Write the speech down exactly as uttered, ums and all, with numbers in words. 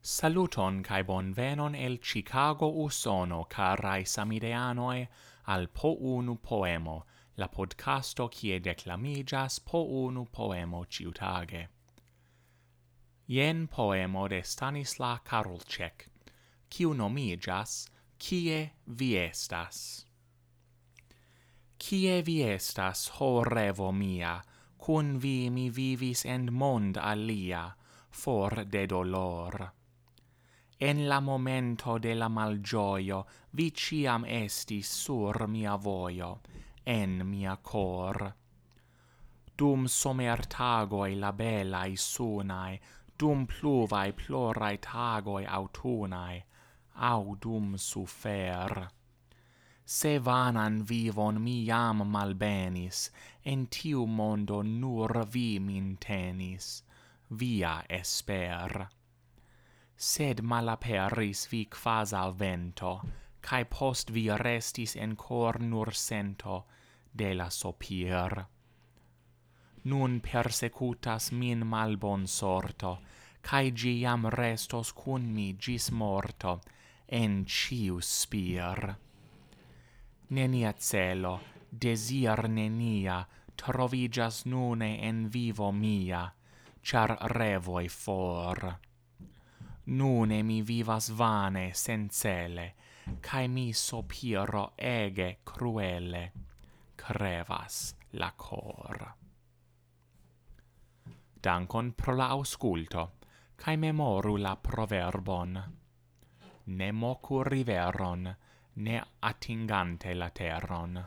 Saluton kaj bonvenon el Chicago, Usono, karaj samideanoj, al Po Unu Poemo, la podcasto kie deklamiĝas po unu poemo ĉiutage. Jen poemo de Stanislav Karlček, kiu nomiĝas Kie vi estas? Kie vi estas, ho revo mia? Kun vi mi vivis en mond alia, for de dolor. En la momento de la malĝojo vi ĉiam estis sur mia vojo, en mia kor. Dum somertagoj la belaj sunaj, dum pluvaj ploraj tagoj aŭtunaj, aŭ dum sufer. Se vanan vivon mi jam malbenis, en tiu mondo nur vi min tenis, via esper. Sed malaperis vi kvazaŭ vento, kaj post vi restis en kor nur sento de la sopir. Nun persekutas min malbonsorto, kaj ĝi jam restos kun mi ĝis morto en ĉiu spir. Nenia celo, dezir nenia, troviĝas nune en vivo mia, ĉar revoj for. Nune mi vivas vane, sencele, kaj mi sopiro ege kruele, krevas la kor. Dankon pro la aŭskulto, kaj memoru la proverbon: ne moku riveron, ne atingante la teron.